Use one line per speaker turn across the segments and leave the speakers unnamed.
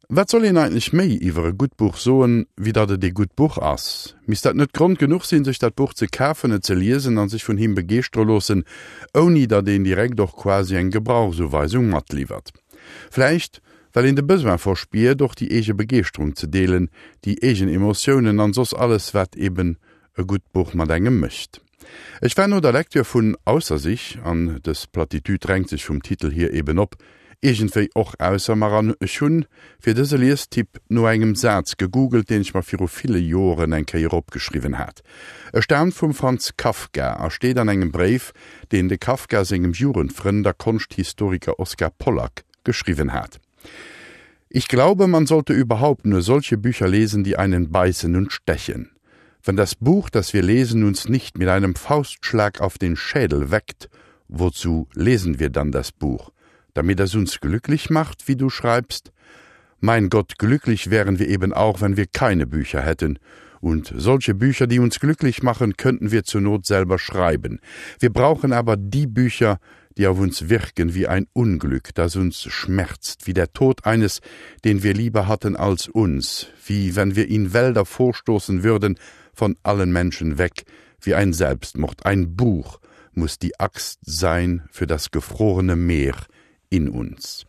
Wat soll een eigentlech méi iwwer e gutt Buch soen, wéi datt et ee gutt Buch ass? Misst dat net Grond genuch sinn, sech dat Buch ze kafen, et ze liesen an sech vun him begeeschtere loossen, ouni datt een direkt och quasi eng Gebrauchsuweisung matliwwert? Vläicht well een de Besoin verspiert, och déi eege Begeeschterung ze deelen, déi eegen Emotiounen an soss alles, wat eben e gutt Buch mat engem mécht. Ech war no der Lektür vun Ausser sich, an dës Platitude drängt sech vum Titel hier eben op, iergendwéi och ausser mer an ech hunn fir dëse Liestipp no engem Saz gegoogelt, deen ech mer viru ville Joeren eng Kéier opgeschriwwen hat. E staamt vum Franz Kafka a steet an engem Bréif, deen de Kafka sengem Jugendfrënd a Konschthistoriker Oskar Pollak geschriwwen hat. Ich glaube, man sollte überhaupt nur solche Bücher lesen, die einen beißen und stechen. Wenn das Buch, das wir lesen, uns nicht mit einem Faustschlag auf den Schädel weckt, wozu lesen wir dann das Buch? Damit es uns glücklich macht, wie du schreibst? Mein Gott, glücklich wären wir eben auch, wenn wir keine Bücher hätten. Und solche Bücher, die uns glücklich machen, könnten wir zur Not selber schreiben. Wir brauchen aber die Bücher, die auf uns wirken wie ein Unglück, das uns schmerzt, wie der Tod eines, den wir lieber hatten als uns, wie wenn wir in Wälder vorstoßen würden, von allen Menschen weg, wie ein Selbstmord, ein Buch muss die Axt sein für das gefrorene Meer in uns.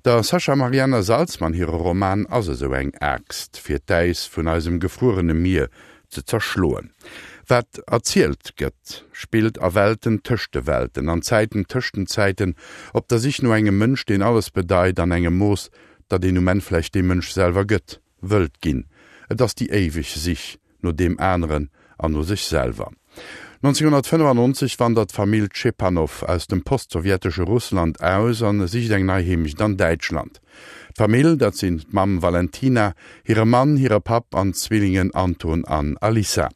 Der Sascha Marianna Salzmann hire Roman ass esou eng Aaxt, fir d'Äis vun eisem gefruerene Mier ze zerschloen. Wat erzielt gëtt, spillt a Welten tëscht de Welten, an Zäiten tëscht den Zäiten, op der Sich no engem Mënsch, deen alles bedeit, an engem Mooss, datt een um Enn vläicht dee Mënsch selwer gëtt, wëllt ginn. Et ass déi éiweg Sich no deem aneren an no sech selwer. 1995 wandert d'Famill Tschepanow aus dem postsowjetesche Russland aus an sicht eng nei Heemecht an Däitschland. D'Famill, dat sinn d'Mamm Valentina, hire Mann, hire Papp an d'Zwillingen Anton an Alissa.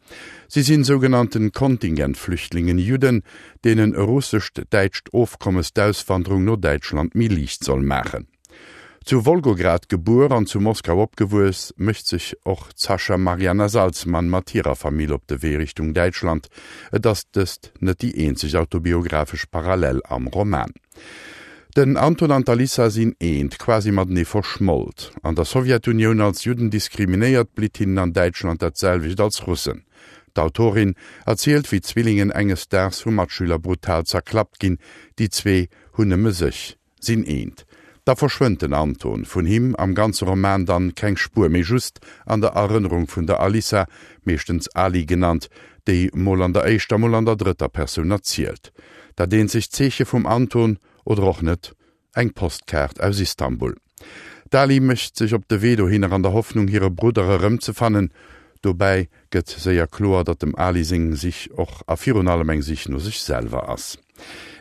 Si sinn sougenannten Kontingentflüchtlingen, Judden, deenen e russescht-däitscht Ofkommes d'Auswanderung no Däitschland méi liicht soll maachen. Zu Wolgograd gebuer an zu Moskau opgewuess, mécht sech och d'Sascha Marianna Salzmann mat hirer Famill op de Wee Richtung Däitschland. Et ass dëst net déi eenzeg autobiographesch Parallel am Roman. Den Anton an d'Alissa sinn eent, quasi matenee verschmolt. An der Sowjetunioun als Judden diskriminéiert, blitt hinnen an Däitschland dat selwecht als Russen. D'Autorin erzielt, wéi d'Zwillingen enges Daags vu Matschüler brutal zerklappt ginn, déi zwee hunn nëmme sech. Sinn eent. Da verschwënnt den Anton, vun him am ganze Roman dann keng Spuer méi, just an der Erënnerung vun der Alissa, meeschtens Ali genannt, déi mol an der éischter, mol an der drëtter Persoun erzielt. Dat eenzegt Zeeche vum Anton, oder och net, eng Postkaart aus Istanbul. D'Ali mécht sech op de Wee dohinner an der Hoffnung hire Brudder erëmzefannen. Dobäi gëtt séier kloer, datt dem Ali seng Sich och a virun allem eng Sich no sech selwer ass.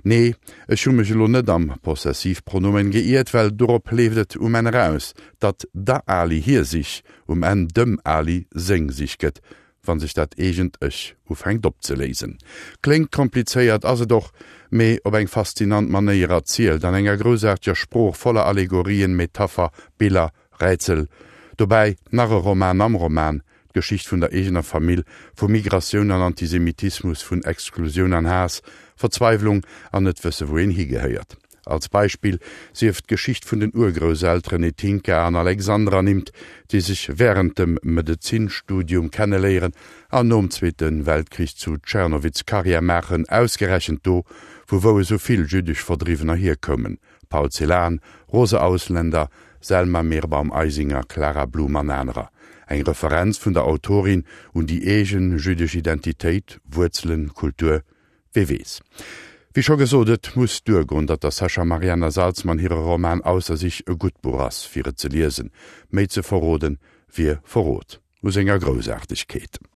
Nee, ech hu mech elo net am Possessivpronomen geiert, well dorop leeft et um Enn eraus, datt der Ali hir Sich um Enn dem Ali seng Sich gëtt, wa sech dat eegent Ech ufänkt opzeléisen. Kléngt komplizéiert, ass et och, mee op eng faszinant Manéier erzielt, an enger groussaarteger Sprooch voller Allegorien, Metapher, Biller, Rätsel. Dobäi nach e Roman am Roman, d'Geschicht vun der eegener Famill, vu Migratioun an Antisemitismus, vun Exklusioun an Haass, Verzweiwlung an net wësse wou een higehéiert. Als Beispill sief d'Geschicht vun den Urgrousselteren Etinka an Alexander ernimmt, déi sech wärend dem Medezinstudium kenneléieren an nom Zweete Weltkrich zu Tschernowitz Karriär maachen, ausgerechent do, vu wou esou vill jüddesch Verdriwwener hierkoumen. Paul Celan, Rose Ausländer, Selma Meerbaum-Eisinger, Clara Blum an anerer. Eng Referenz vun der Autorin un déi eegen jüddesch Identitéit, Wuerzelen, Kultur, wee weess. Wéi scho gesot, et muss duergoen, datt der Sascha Marianna Salzmann hire Roman Ausser sich e gutt Buch ass, fir et ze liesen. Méi ze verroden, wier Verrot u senger Groussaartegkeet.